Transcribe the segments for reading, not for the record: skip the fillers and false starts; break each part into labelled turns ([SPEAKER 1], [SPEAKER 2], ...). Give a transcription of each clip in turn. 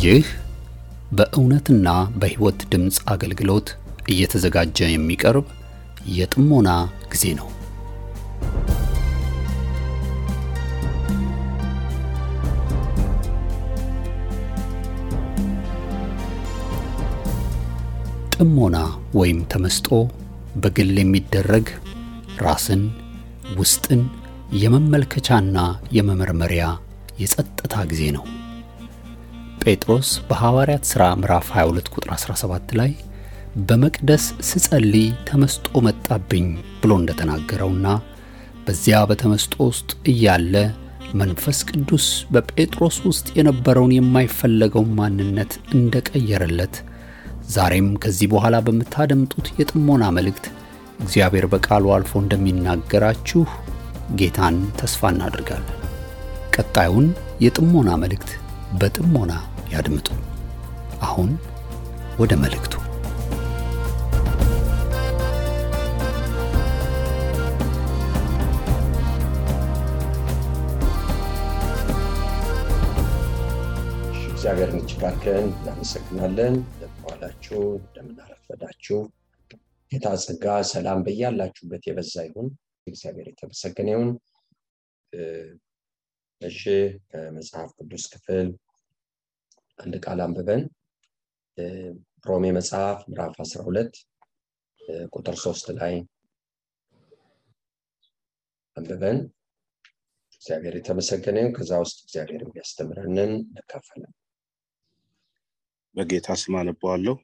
[SPEAKER 1] ይህ በእውነትና በሕይወት ድምጽ አገልግሎት እየተዘጋጀ የሚቀርብ የጥሞና ጊዜ ነው። ጥሞና ወይም ተመስጦ በግል የሚደረግ ራስን ውስጥን የመመልከቻና የመመርመሪያ የጸጥታ ጊዜ ነው። ጴጥሮስ በሐዋርያት ሥራ ምዕራፍ 22 ቁጥር 17 ላይ በመቅደስ ስጸልይ ተመስጦ መጣብኝ ብሎ እንደተናገረውና በዚያ በተመስጦ ውስጥ እያለ መንፈስ ቅዱስ በጴጥሮስ ውስጥ የነበረውን የማይፈለገው ማንነት እንደቀየረለት ዛሬም ከዚህ በኋላ በመታደምጡት የጥሞና መልእክት እግዚአብሔር በቃሉ አልፎ እንደሚናገራችሁ ጌታን ተስፋ እናደርጋለን። ቀጣዩን የጥሞና መልእክት በጥሞና ያድምጡ። አሁን ወደ መልእክቱ።
[SPEAKER 2] እግዚአብሔርን እጅግ አድርገን እናመሰግናለን። እንደምዋላችሁ እንደምናረፈዳችሁ ጌታ ጸጋ ሰላም በያላችሁበት የበዛ ይሁን። እግዚአብሔር የተመሰገነ ይሁን። እሺ ከመጽሐፍ ቅዱስ ክፍል አንድ ቃል አንብበን ሮሜ መጽሐፍ ምዕራፍ 12 ቁጥር 3 ላይ አንብበን እግዚአብሔር የተመሰገነ ይሁን። ከዛ ውስጥ እግዚአብሔር የሚያስተምረንን እንካፈላለን።
[SPEAKER 3] በጌታ ስም አነባለሁ።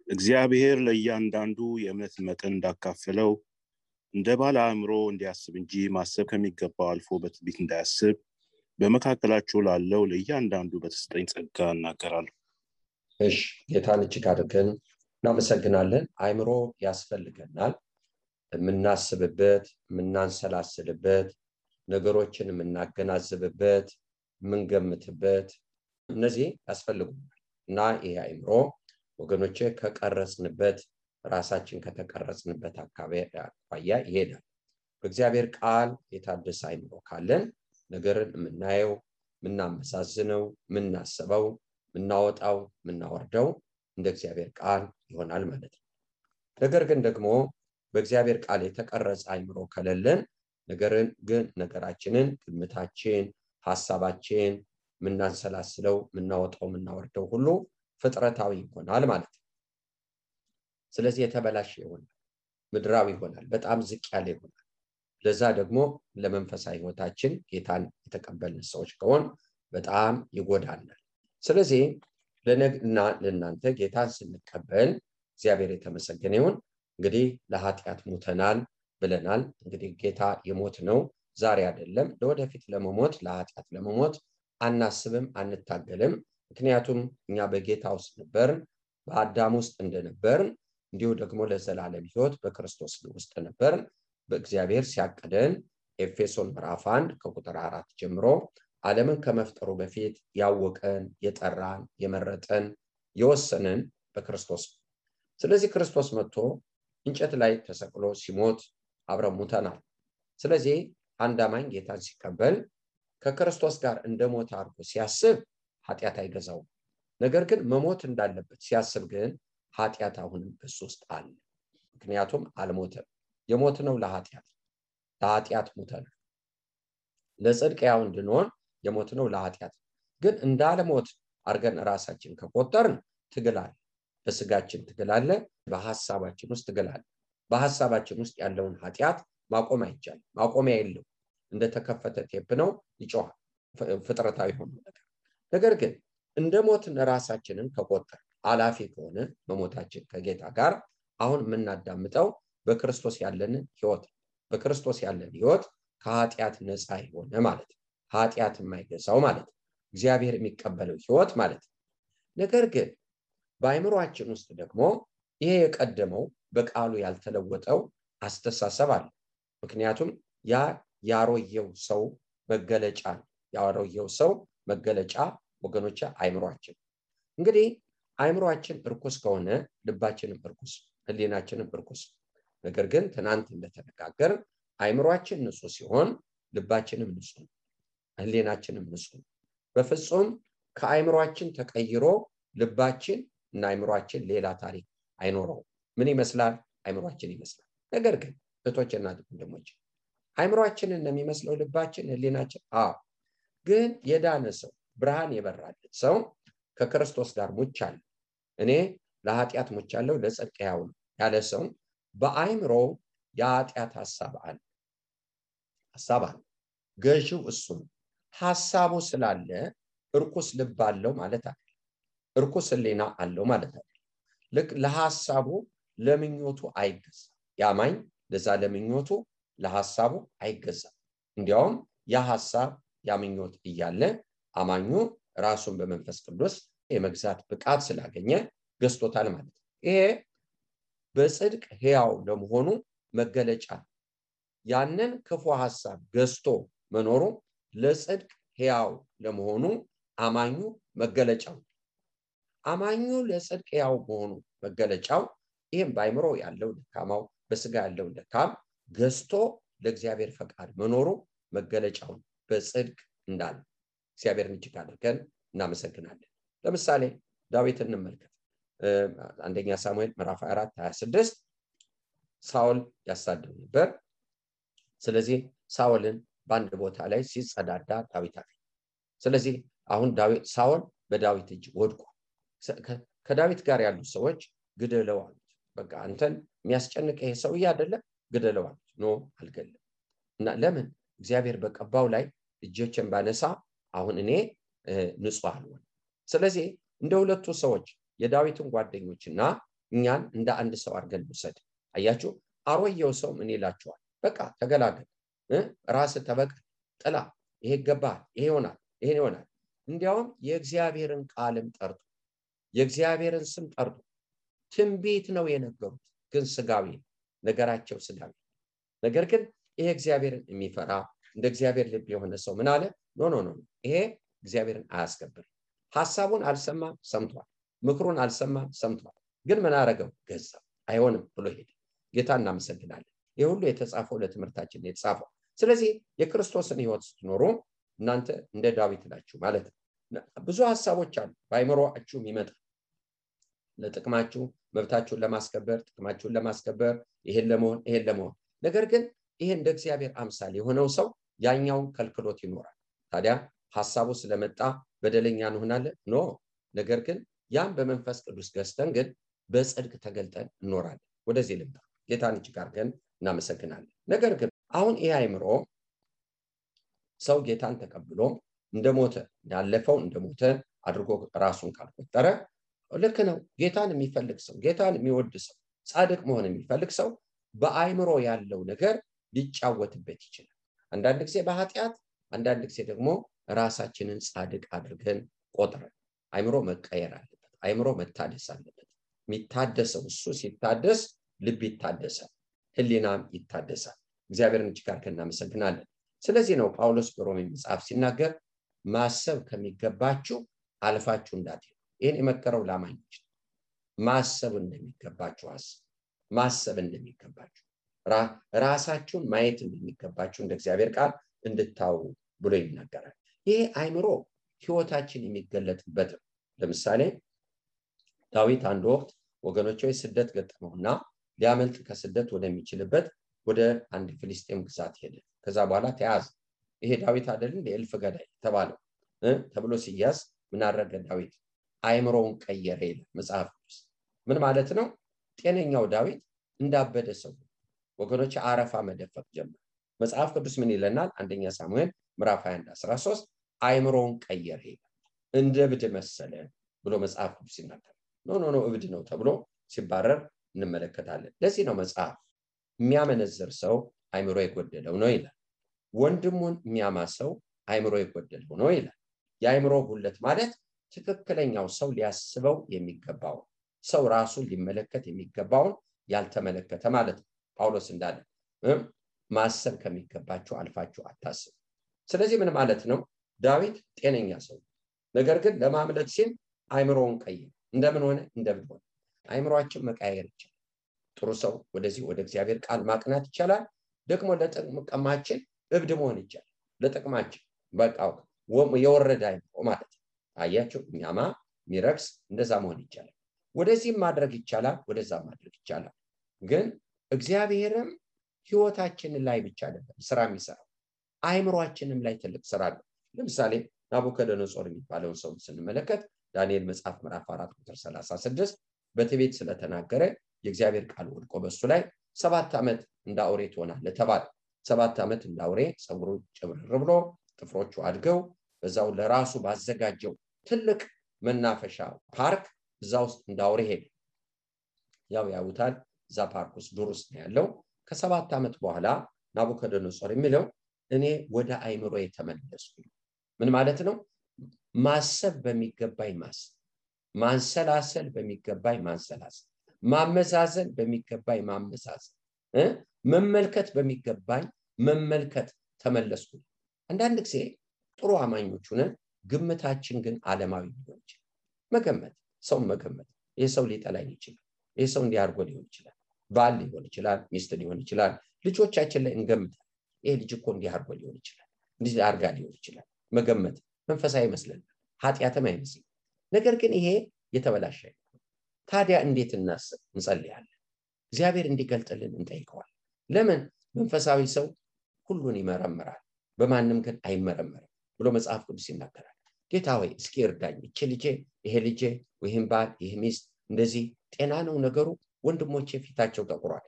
[SPEAKER 3] እግዚአብሔር ለእያንዳንዱ የእምነት መጠን እንዳካፈለው እንደ ባለ አእምሮ እንዲያስብ እንጂ ማሰብ ከሚገባው አልፎ በትዕቢት እንዳያስብ በመካከላቸው ላለው ለእያንዳንዱ በተሰጠኝ ጸጋ እናገራለሁ።
[SPEAKER 2] እሺ ጌታን እጅግ አድርገን እናመሰግናለን። አእምሮ ያስፈልገናል። የምናስብበት፣ የምናንሰላስልበት፣ ነገሮችን የምናገናዝብበት፣ የምንገምትበት እነዚህ ያስፈልጉናል እና ይሄ አእምሮ ወገኖቼ ከቀረጽንበት ራሳችን ከተቀረጽንበት አኳያ ይሄዳል። በእግዚአብሔር ቃል የታደሰ አእምሮ ካለን ነገርን የምናየው፣ የምናመዛዝነው፣ የምናስበው፣ የምናወጣው፣ የምናወርደው እንደ እግዚአብሔር ቃል ይሆናል ማለት ነው። ነገር ግን ደግሞ በእግዚአብሔር ቃል የተቀረጸ አእምሮ ከሌለን ነገራችንን፣ ግምታችን፣ ሐሳባችን የምናንሰላስለው፣ የምናወጣው፣ የምናወርደው ሁሉ ፍጥረታዊ ይሆናል ማለት ነው። ስለዚህ የተበላሸ ይሆናል፣ ምድራዊ ይሆናል፣ በጣም ዝቅ ያለ ይሆናል። ለዛ ደግሞ ለመንፈሳዊ ሕይወታችን ጌታን የተቀበልን ሰዎች ከሆን በጣም ይጎዳናል። ስለዚህ ለእናንተ ጌታን ስንቀበል እግዚአብሔር የተመሰገነ ይሁን። እንግዲህ ለኃጢአት ሞተናል ብለናል። እንግዲህ ጌታ የሞት ነው ዛሬ አይደለም። ለወደፊት ለመሞት ለኃጢአት ለመሞት አናስብም፣ አንታገልም። ምክንያቱም እኛ በጌታ ውስጥ ነበርን፣ በአዳም ውስጥ እንደነበርን እንዲሁ ደግሞ ለዘላለም ሕይወት በክርስቶስ ውስጥ ነበርን። በእግዚአብሔር ሲያቀደን ኤፌሶን ምዕራፍ 1 ከቁጥር 4 ጀምሮ ዓለምን ከመፍጠሩ በፊት ያወቀን፣ የጠራን፣ የመረጠን፣ የወሰነን በክርስቶስ። ስለዚህ ክርስቶስ መጥቶ እንጨት ላይ ተሰቅሎ ሲሞት አብረን ሞተናል። ስለዚህ አንድ አማኝ ጌታን ሲቀበል ከክርስቶስ ጋር እንደሞተ አድርጎ ሲያስብ ኃጢአት አይገዛውም። ነገር ግን መሞት እንዳለበት ሲያስብ ግን ኃጢአት አሁንም በሱ ውስጥ አለ። ምክንያቱም አልሞተም። የሞት ነው ለኃጢአት ሞተናል። ለጽድቅ ያው እንድንሆን የሞት ነው ለኃጢአት። ግን እንዳልሞት አድርገን ራሳችን ከቆጠርን ትግል አለ። በስጋችን ትግል አለ፣ በሐሳባችን ውስጥ ትግል አለ። በሐሳባችን ውስጥ ያለውን ኃጢአት ማቆም አይቻልም። ማቆሚያ የለው። እንደተከፈተ ቴፕ ነው፣ ይጮሃል። ፍጥረታዊ ሆኖ ነገር ግን እንደሞትን ራሳችንን ከቆጠር አላፊ ከሆነ መሞታችን ከጌታ ጋር አሁን የምናዳምጠው በክርስቶስ ያለንን ሕይወት፣ በክርስቶስ ያለን ሕይወት ከኃጢአት ነፃ የሆነ ማለት ነው። ኃጢአት የማይገዛው ማለት ነው። እግዚአብሔር የሚቀበለው ሕይወት ማለት ነው። ነገር ግን በአእምሮአችን ውስጥ ደግሞ ይሄ የቀደመው በቃሉ ያልተለወጠው አስተሳሰብ አለ። ምክንያቱም ያ ያሮየው ሰው መገለጫ ነው። ያሮየው ሰው መገለጫ ወገኖች አእምሮአችን። እንግዲህ አእምሮአችን እርኩስ ከሆነ ልባችንም እርኩስ፣ ህሊናችንም እርኩስ። ነገር ግን ትናንት እንደተነጋገር አእምሮአችን ንጹህ ሲሆን ልባችንም ንጹህ፣ ህሊናችንም ንጹህ። በፍጹም ከአይምሮአችን ተቀይሮ ልባችን እና አይምሮአችን ሌላ ታሪክ አይኖረው። ምን ይመስላል? አይምሮአችን ይመስላል። ነገር ግን እህቶችና ወንድሞች አይምሮአችንን ነው የሚመስለው ልባችን፣ ህሊናችን? ግን የዳነ ሰው ብርሃን የበራለት ሰው ከክርስቶስ ጋር ሙቻለሁ፣ እኔ ለኃጢአት ሙቻለሁ ለጽድቅ ሕያው ነኝ ያለ ሰው በአይምሮ የኃጢአት ሐሳብ አለ። ገዢው እሱ ነው። ሐሳቡ ስላለ እርኩስ ልብ አለው ማለት አይደለም። እርኩስ ህሊና አለው ማለት አይደለም። ልክ ለሐሳቡ ለምኞቱ አይገዛም። ያማኝ ለዛ ለምኞቱ ለሐሳቡ አይገዛም። እንዲያውም ያ ሐሳብ ያ ምኞት እያለ አማኙ ራሱን በመንፈስ ቅዱስ የመግዛት ብቃት ስላገኘ ገዝቶታል ማለት ነው። ይሄ በጽድቅ ሕያው ለመሆኑ መገለጫ። ያንን ክፉ ሐሳብ ገዝቶ መኖሩ ለጽድቅ ሕያው ለመሆኑ አማኙ መገለጫው። አማኙ ለጽድቅ ሕያው መሆኑ መገለጫው ይሄም በአይምሮ ያለው ደካማው በስጋ ያለው ደካም ገዝቶ ለእግዚአብሔር ፈቃድ መኖሩ መገለጫው በጽድቅ እንዳለ እግዚአብሔርን እጅግ አድርገን እናመሰግናለን። ለምሳሌ ዳዊትን እንመልከት። አንደኛ ሳሙኤል ምዕራፍ 4:26 ሳኦል ያሳደው ነበር። ስለዚህ ሳኦልን በአንድ ቦታ ላይ ሲጸዳዳ ዳዊት አገኘ። ስለዚህ አሁን ሳኦል በዳዊት እጅ ወድቋል። ከዳዊት ጋር ያሉ ሰዎች ግደለው አሉት። በቃ አንተን የሚያስጨንቅ ይሄ ሰውዬ አይደለ? ግደለው አሉት። ኖ አልገለም። እና ለምን? እግዚአብሔር በቀባው ላይ እጆችን ባነሳ አሁን እኔ ንጹህ አልሆን። ስለዚህ እንደ ሁለቱ ሰዎች የዳዊትን ጓደኞችና እኛን እንደ አንድ ሰው አድርገን ውሰድ። አያችሁ፣ አሮየው ሰው ምን ይላችኋል? በቃ ተገላገል፣ ራስ ተበቀል፣ ጥላ፣ ይሄ ይገባል፣ ይሄ ይሆናል፣ ይሄ ይሆናል። እንዲያውም የእግዚአብሔርን ቃልም ጠርቶ የእግዚአብሔርን ስም ጠርቶ ትንቢት ነው የነገሩት፣ ግን ስጋዊ ነገራቸው ስጋዊ። ነገር ግን ይሄ እግዚአብሔርን የሚፈራ እንደ እግዚአብሔር ልብ የሆነ ሰው ምን አለ? ኖ ኖ ኖ፣ ይሄ እግዚአብሔርን አያስከብርም። ሐሳቡን አልሰማም፣ ሰምቷል። ምክሩን አልሰማም፣ ሰምቷል። ግን ምን አረገው? ገዛ። አይሆንም ብሎ ሄደ። ጌታ እናመሰግናለን። ይህ ሁሉ የተጻፈው ለትምህርታችን የተጻፈው። ስለዚህ የክርስቶስን ሕይወት ስትኖሩ እናንተ እንደ ዳዊት ናችሁ ማለት ነው። ብዙ ሐሳቦች አሉ በአይምሮአችሁ የሚመጣ ለጥቅማችሁ፣ መብታችሁን ለማስከበር፣ ጥቅማችሁን ለማስከበር፣ ይሄን ለመሆን። ነገር ግን ይሄ እንደ እግዚአብሔር አምሳል የሆነው ሰው ያኛውን ከልክሎት ይኖራል። ታዲያ ሐሳቡ ስለመጣ በደለኛ እንሆናለን? ኖ። ነገር ግን ያን በመንፈስ ቅዱስ ገዝተን ግን በጽድቅ ተገልጠን እንኖራለን። ወደዚህ ልምጣ። ጌታን እጅግ አድርገን እናመሰግናለን። ነገር ግን አሁን ይሄ አይምሮ ሰው ጌታን ተቀብሎ እንደሞተ ያለፈው እንደሞተ አድርጎ ራሱን ካልቆጠረ ልክ ነው። ጌታን የሚፈልግ ሰው፣ ጌታን የሚወድ ሰው፣ ጻድቅ መሆን የሚፈልግ ሰው በአይምሮ ያለው ነገር ሊጫወትበት ይችላል። አንዳንድ ጊዜ በኃጢአት፣ አንዳንድ ጊዜ ደግሞ ራሳችንን ጻድቅ አድርገን ቆጥረን። አይምሮ መቀየር አለበት። አይምሮ መታደስ አለበት። የሚታደሰው እሱ ሲታደስ ልብ ይታደሳል፣ ህሊናም ይታደሳል። እግዚአብሔርን እጅግ አድርገን እናመሰግናለን። ስለዚህ ነው ጳውሎስ በሮሜ መጽሐፍ ሲናገር ማሰብ ከሚገባችሁ አልፋችሁ እንዳትሄዱ። ይህን የመከረው ለአማኞች ማሰብ እንደሚገባችሁ ማሰብ እንደሚገባችሁ ራሳችሁን ማየት እንደሚገባችሁ እንደ እግዚአብሔር ቃል እንድታው ብሎ ይናገራል። ይሄ አይምሮ ህይወታችን የሚገለጥበት ነው። ለምሳሌ ዳዊት አንድ ወቅት ወገኖቹ ስደት ገጠመውና ሊያመልጥ ከስደት ወደሚችልበት ወደ አንድ ፍልስጤም ግዛት ሄደ። ከዛ በኋላ ተያዘ። ይሄ ዳዊት አይደለም የእልፍ ገዳይ ተባለው ተብሎ ሲያዝ ምን አደረገ ዳዊት? አይምሮውን ቀየረ ይላል መጽሐፍ ቅዱስ። ምን ማለት ነው? ጤነኛው ዳዊት እንዳበደ ሰው ወገኖች አረፋ መደፈቅ ጀመረ። መጽሐፍ ቅዱስ ምን ይለናል? አንደኛ ሳሙኤል ምዕራፍ 21:13 አይምሮውን ቀየረ ይላል። እንደ እብድ መሰለ ብሎ መጽሐፍ ቅዱስ ይናገራል። ኖ እብድ ነው ተብሎ ሲባረር እንመለከታለን። ለዚህ ነው መጽሐፍ የሚያመነዝር ሰው አይምሮ የጎደለው ነው ይላል። ወንድሙን የሚያማ ሰው አይምሮ የጎደለው ነው ይላል። የአይምሮ ጉድለት ማለት ትክክለኛው ሰው ሊያስበው የሚገባው ሰው ራሱን ሊመለከት የሚገባውን ያልተመለከተ ማለት ነው። ጳውሎስ እንዳለ ማሰብ ከሚገባችሁ አልፋችሁ አታስቡ። ስለዚህ ምን ማለት ነው? ዳዊት ጤነኛ ሰው፣ ነገር ግን ለማምለጥ ሲል አይምሮውን ቀየረ። እንደምን ሆነ? እንደምን ሆነ? አይምሮአችን መቀየር ይችላል። ጥሩ ሰው ወደዚህ ወደ እግዚአብሔር ቃል ማቅናት ይችላል። ደግሞ ለጥቅማችን እብድ መሆን ይችላል። ለጥቅማችን በቃ የወረደ አይምሮ ማለት ነው። አያችሁ የሚያማ ሚረክስ እንደዛ መሆን ይቻላል። ወደዚህም ማድረግ ይቻላል፣ ወደዛ ማድረግ ይቻላል። ግን እግዚአብሔርም ህይወታችን ላይ ብቻ አይደለም ስራ የሚሰራው አይምሮአችንም ላይ ትልቅ ስራ አለው። ለምሳሌ ናቡከደነጾር የሚባለውን ሰው ስንመለከት ዳንኤል መጽሐፍ ምዕራፍ 4 ቁጥር 36 በትዕቢት ስለተናገረ የእግዚአብሔር ቃል ወድቆ በሱ ላይ 7 ዓመት እንዳውሬ ትሆናለህ ተባለ። 7 ዓመት እንዳውሬ ጸጉሩ ጭብርር ብሎ ጥፍሮቹ አድገው በዛው ለራሱ ባዘጋጀው ትልቅ መናፈሻ ፓርክ እዛ ውስጥ እንዳውሬ ሄደ። ያው ያውታል እዛ ፓርክ ውስጥ ዱር ውስጥ ነው ያለው። ከ7 ዓመት በኋላ ናቡከደነጾር የሚለው እኔ ወደ አይምሮዬ ተመለስኩ። ምን ማለት ነው? ማሰብ በሚገባኝ ማሰብ፣ ማንሰላሰል በሚገባኝ ማንሰላሰል፣ ማመዛዘን በሚገባኝ ማመዛዘን፣ መመልከት በሚገባኝ መመልከት ተመለስኩ። አንዳንድ ጊዜ ጥሩ አማኞች ሆነን ግምታችን ግን ዓለማዊ ሊሆን ይችላል። መገመት፣ ሰው መገመት፣ ይሄ ሰው ሊጠላኝ ይችላል፣ ይሄ ሰው እንዲያርጎ ሊሆን ይችላል፣ ባል ሊሆን ይችላል፣ ሚስት ሊሆን ይችላል። ልጆቻችን ላይ እንገምታለን። ይሄ ልጅ እኮ እንዲያርጎ ሊሆን ይችላል፣ እንዲህ አርጋ ሊሆን ይችላል። መገመት መንፈሳዊ ይመስለናል፣ ኃጢአትም አይመስልም። ነገር ግን ይሄ የተበላሸ ነው። ታዲያ እንዴት እናስብ? እንጸልያለን። እግዚአብሔር እንዲገልጥልን እንጠይቀዋለን። ለምን? መንፈሳዊ ሰው ሁሉን ይመረምራል፣ በማንም ግን አይመረመርም ብሎ መጽሐፍ ቅዱስ ይናገራል። ጌታ ሆይ እስኪ እርዳኝ፣ እቺ ልጄ፣ ይሄ ልጄ፣ ይሄን ባል፣ ይሄ ሚስት እንደዚህ ጤና ነው ነገሩ፣ ወንድሞቼ ፊታቸው ጠቁሯል፣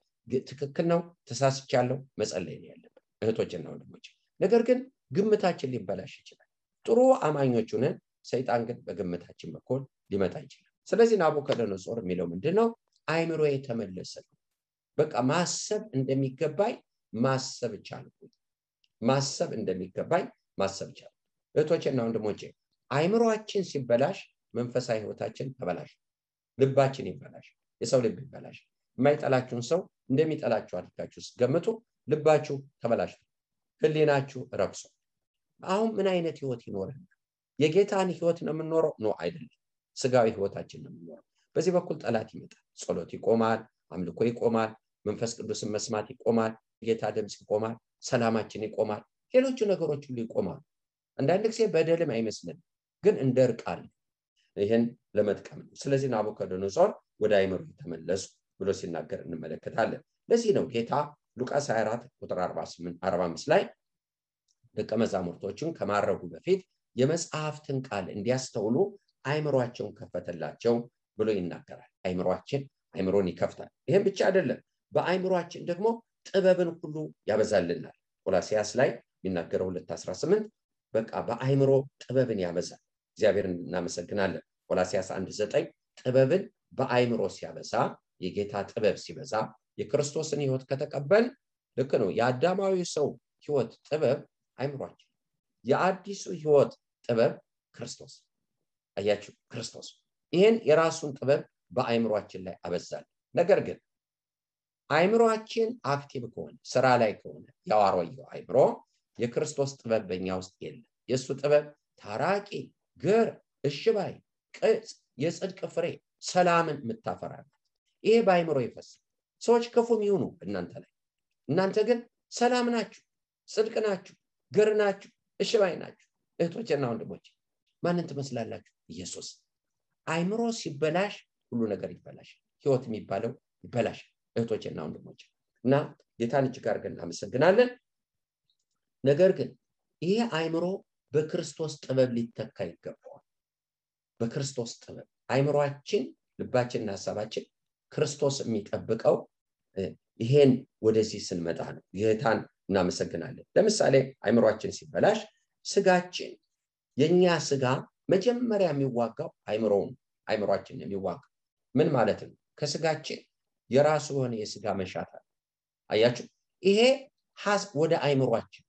[SPEAKER 2] ትክክል ነው፣ ተሳስቻለሁ፣ መጸለይ ነው ያለብን እህቶችና ወንድሞቼ። ነገር ግን ግምታችን ሊበላሽ ይችላል። ጥሩ አማኞች ሆነን ሰይጣን ግን በግምታችን በኩል ሊመጣ ይችላል። ስለዚህ ናቡከደነጾር የሚለው ምንድነው? አይምሮዬ ተመለሰ። በቃ ማሰብ እንደሚገባኝ ማሰብ ቻልኩ። ማሰብ እንደሚገባኝ ማሰብ ቻልኩ። እህቶቼና ወንድሞቼ አይምሮአችን ሲበላሽ መንፈሳዊ ህይወታችን ተበላሽ፣ ልባችን ይበላሽ፣ የሰው ልብ ይበላሽ። የማይጠላችሁን ሰው እንደሚጠላችሁ አድርጋችሁ ገምቱ፣ ልባችሁ ተበላሽ፣ ህሊናችሁ ረክሶ። አሁን ምን አይነት ህይወት ይኖረን? የጌታን ህይወት ነው የምንኖረው? ነው አይደለም፣ ስጋዊ ህይወታችን ነው የምንኖረው። በዚህ በኩል ጠላት ይመጣል፣ ጸሎት ይቆማል፣ አምልኮ ይቆማል፣ መንፈስ ቅዱስን መስማት ይቆማል፣ ጌታ ድምጽ ይቆማል፣ ሰላማችን ይቆማል፣ ሌሎች ነገሮች ሁሉ ይቆማሉ። አንዳንድ ጊዜ በደልም አይመስልም፣ ግን እንደርቃል። ይሄን ለመጥቀም ነው። ስለዚህ ናቡከደነጾር ወደ አይምሮ ተመለሱ ብሎ ሲናገር እንመለከታለን። ለዚህ ነው ጌታ ሉቃስ 24 ቁጥር 45 ላይ ደቀ መዛሙርቶቹን ከማረጉ በፊት የመጽሐፍትን ቃል እንዲያስተውሉ አይምሮአቸውን ከፈተላቸው ብሎ ይናገራል። አይምሮን ይከፍታል። ይሄን ብቻ አይደለም፣ በአይምሮአችን ደግሞ ጥበብን ሁሉ ያበዛልናል። ቆላስይስ ላይ የሚናገረው 2:18 በቃ በአይምሮ ጥበብን ያበዛል። እግዚአብሔርን እናመሰግናለን። ቆላስይስ 1:9 ጥበብን በአይምሮ ሲያበዛ፣ የጌታ ጥበብ ሲበዛ፣ የክርስቶስን ህይወት ከተቀበል ልክ ነው። የአዳማዊ ሰው ህይወት ጥበብ አይምሮአችን፣ የአዲሱ ህይወት ጥበብ ክርስቶስ። አያችሁ፣ ክርስቶስ ይሄን የራሱን ጥበብ በአይምሮአችን ላይ አበዛል። ነገር ግን አይምሮአችን አክቲቭ ከሆነ ስራ ላይ ከሆነ ያዋሮየው አይምሮ የክርስቶስ ጥበብ በእኛ ውስጥ የለም። የሱ ጥበብ ታራቂ፣ ገር፣ እሽባይ፣ ቅጽ፣ የጽድቅ ፍሬ፣ ሰላምን የምታፈራበት ይሄ በአይምሮ ይፈሳል። ሰዎች ክፉም ይሁኑ እናንተ ላይ፣ እናንተ ግን ሰላም ናችሁ፣ ጽድቅ ናችሁ፣ ገር ናችሁ፣ እሽባይ ናችሁ። እህቶችና ወንድሞች ማንን ትመስላላችሁ? ኢየሱስ። አይምሮ ሲበላሽ ሁሉ ነገር ይበላሽ፣ ህይወት የሚባለው ይበላሽ። እህቶችና ወንድሞች እና ጌታን እጅግ አድርገን እናመሰግናለን። ነገር ግን ይሄ አይምሮ በክርስቶስ ጥበብ ሊተካ ይገባዋል። በክርስቶስ ጥበብ አይምሮአችን፣ ልባችንና ሐሳባችን ክርስቶስ የሚጠብቀው ይሄን ወደዚህ ስንመጣ ነው። ጌታን እናመሰግናለን። ለምሳሌ አይምሮአችን ሲበላሽ ስጋችን፣ የኛ ስጋ መጀመሪያ የሚዋጋው አይምሮአችን የሚዋጋው ምን ማለት ነው? ከስጋችን የራሱ የሆነ የስጋ መሻት አለ። አያችሁ፣ ይሄ ወደ አይምሮአችን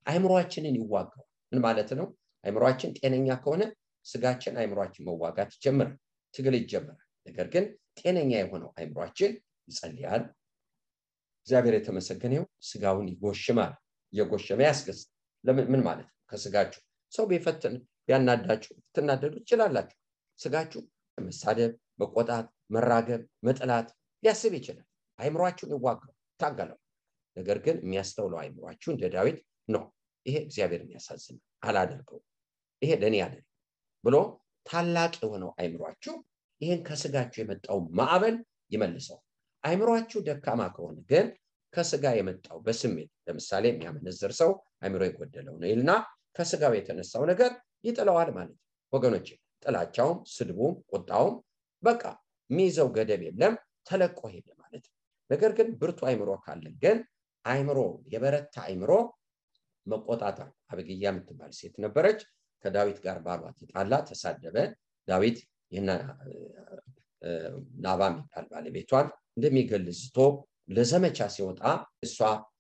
[SPEAKER 2] አይምሮአችንን ይዋጋው። ምን ማለት ነው? አይምሮአችን ጤነኛ ከሆነ ስጋችን አይምሮአችን መዋጋት ይጀምራል፣ ትግል ይጀምራል። ነገር ግን ጤነኛ የሆነው አይምሮአችን ይጸልያል፣ እግዚአብሔር የተመሰገነው፣ ስጋውን ይጎሽማል፣ የጎሸመ ያስገዝ። ምን ማለት ነው? ከስጋችሁ ሰው ቢፈትን ቢያናዳችሁ ትናደዱ ትችላላችሁ። ስጋችሁ መሳደብ፣ መቆጣት፣ መራገብ፣ መጥላት ሊያስብ ይችላል። አይምሮአችሁን ይዋጋው፣ ታገለው። ነገር ግን የሚያስተውለው አይምሮአችሁ እንደ ዳዊት ነው። ይሄ እግዚአብሔርን ያሳዝናል፣ አላደርገው፣ ይሄ ለኔ አይደለም፣ ብሎ ታላቅ የሆነው አይምሯችሁ ይህን ከስጋችሁ የመጣው ማዕበል ይመልሰው። አይምሯችሁ ደካማ ከሆነ ግን ከስጋ የመጣው በስሜት ለምሳሌ የሚያመነዝር ሰው አይምሮ የጎደለው ነው ይልና ከስጋው የተነሳው ነገር ይጥለዋል ማለት ነው። ወገኖች ጥላቻውም፣ ስድቡም፣ ቁጣውም በቃ ሚይዘው ገደብ የለም ተለቆ ሄደ ማለት ነው። ነገር ግን ብርቱ አይምሮ ካለን ግን አይምሮ የበረታ አይምሮ መቆጣጠር። አቢግያ የምትባል ሴት ነበረች። ከዳዊት ጋር ባሏ ተጣላ፣ ተሳደበ። ዳዊት ይህን ናባል የሚባል ባለቤቷን እንደሚገልዝቶ ለዘመቻ ሲወጣ እሷ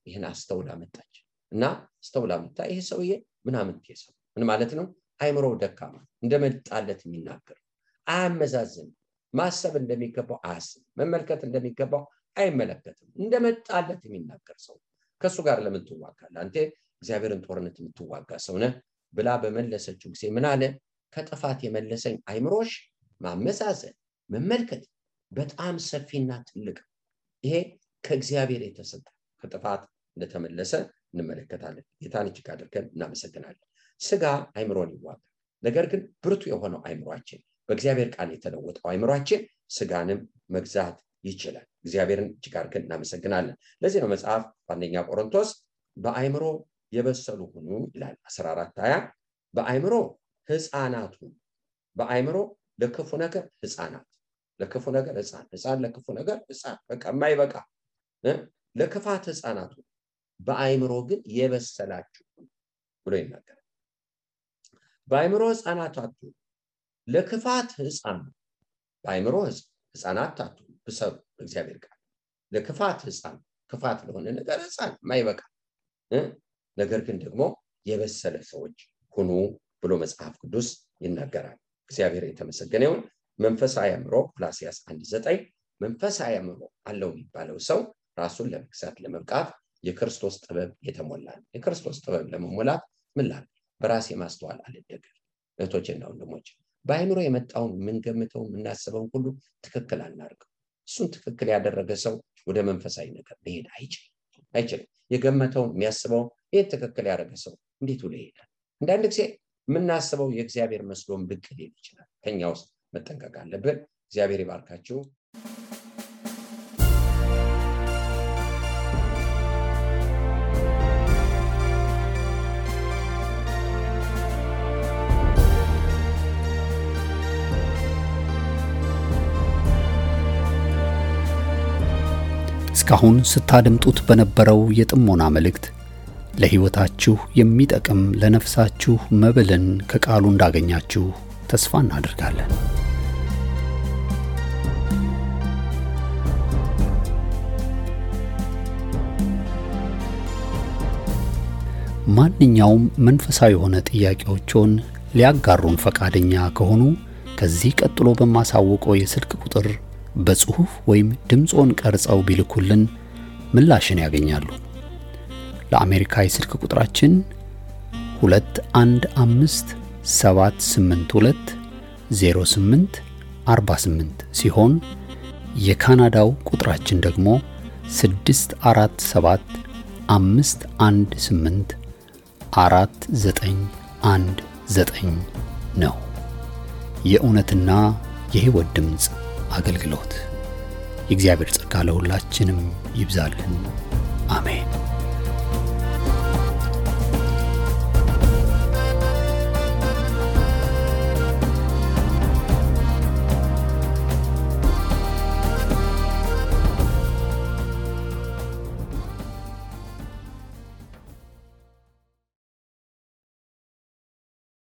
[SPEAKER 2] ይህን አስተውላ መጣች እና አስተውላ መጣ። ይሄ ሰውዬ ምናምን ተሰው ምን ማለት ነው? አይምሮ ደካማ እንደመጣለት የሚናገር አያመዛዝን፣ ማሰብ እንደሚገባው አያስብ፣ መመልከት እንደሚገባው አይመለከትም፣ እንደመጣለት የሚናገር ሰው ከሱ ጋር ለምን ትዋጋለህ? አንተ እግዚአብሔርን ጦርነት የምትዋጋ ሰው ነህ ብላ በመለሰችው ጊዜ ምን አለ? ከጥፋት የመለሰኝ አይምሮሽ ማመዛዘን መመልከት በጣም ሰፊና ትልቅ፣ ይሄ ከእግዚአብሔር የተሰጠ ከጥፋት እንደተመለሰ እንመለከታለን። ጌታን እጅግ አድርገን እናመሰግናለን። ስጋ አይምሮን ይዋጋል። ነገር ግን ብርቱ የሆነው አይምሮአችን በእግዚአብሔር ቃል የተለወጠው አይምሮአችን ስጋንም መግዛት ይችላል። እግዚአብሔርን እጅግ አድርገን እናመሰግናለን። ለዚህ ነው መጽሐፍ በአንደኛ ቆሮንቶስ በአይምሮ የበሰሉ ሁኑ ይላል 14:20 በአይምሮ ህፃናት ሁኑ። በአይምሮ ለክፉ ነገር ህፃናት፣ ለክፉ ነገር ህፃን ለክፉ ነገር ህፃን በቃ የማይበቃ ለክፋት ህፃናት ሁኑ፣ በአይምሮ ግን የበሰላችሁ ብሎ ይናገራል። በአይምሮ ህፃናት አትሁኑ፣ ለክፋት ህፃን፣ በአይምሮ ህፃናት አትሁኑ፣ ብሰሉ እግዚአብሔር ቃል ለክፋት ህፃን፣ ክፋት ለሆነ ነገር ህፃን የማይበቃ ነገር ግን ደግሞ የበሰለ ሰዎች ሁኑ ብሎ መጽሐፍ ቅዱስ ይናገራል። እግዚአብሔር የተመሰገነ ይሁን። መንፈሳዊ አእምሮ ቆላስይስ 1:9 መንፈሳዊ አእምሮ አለው የሚባለው ሰው ራሱን ለመግዛት ለመብቃት የክርስቶስ ጥበብ የተሞላ ነው። የክርስቶስ ጥበብ ለመሞላት ምን ላድርግ? በራሴ ማስተዋል አልደገፍ። እህቶቼና ወንድሞቼ በአይምሮ የመጣውን የምንገምተው የምናስበውን ሁሉ ትክክል አናርገው። እሱን ትክክል ያደረገ ሰው ወደ መንፈሳዊ ነገር መሄድ አይችልም። የገመተውን የሚያስበውን ይህን ትክክል ያደረገ ሰው እንዴት ብሎ ይሄዳል? አንዳንድ ጊዜ የምናስበው የእግዚአብሔር መስሎም ብቅ ሊል ይችላል። ከኛ ውስጥ መጠንቀቅ አለብን። እግዚአብሔር ይባርካችሁ።
[SPEAKER 1] እስካሁን ስታደምጡት በነበረው የጥሞና መልእክት ለሕይወታችሁ የሚጠቅም ለነፍሳችሁ መብልን ከቃሉ እንዳገኛችሁ ተስፋ እናደርጋለን። ማንኛውም መንፈሳዊ የሆነ ጥያቄዎችን ሊያጋሩን ፈቃደኛ ከሆኑ ከዚህ ቀጥሎ በማሳውቀው የስልክ ቁጥር በጽሁፍ ወይም ድምጾን ቀርጸው ቢልኩልን ምላሽን ያገኛሉ። ለአሜሪካ የስልክ ቁጥራችን 2157820848 ሲሆን የካናዳው ቁጥራችን ደግሞ 647-518-4919 ነው። የእውነትና የሕይወት ድምጽ አገልግሎት። የእግዚአብሔር ጸጋ ለሁላችንም ይብዛልን። አሜን።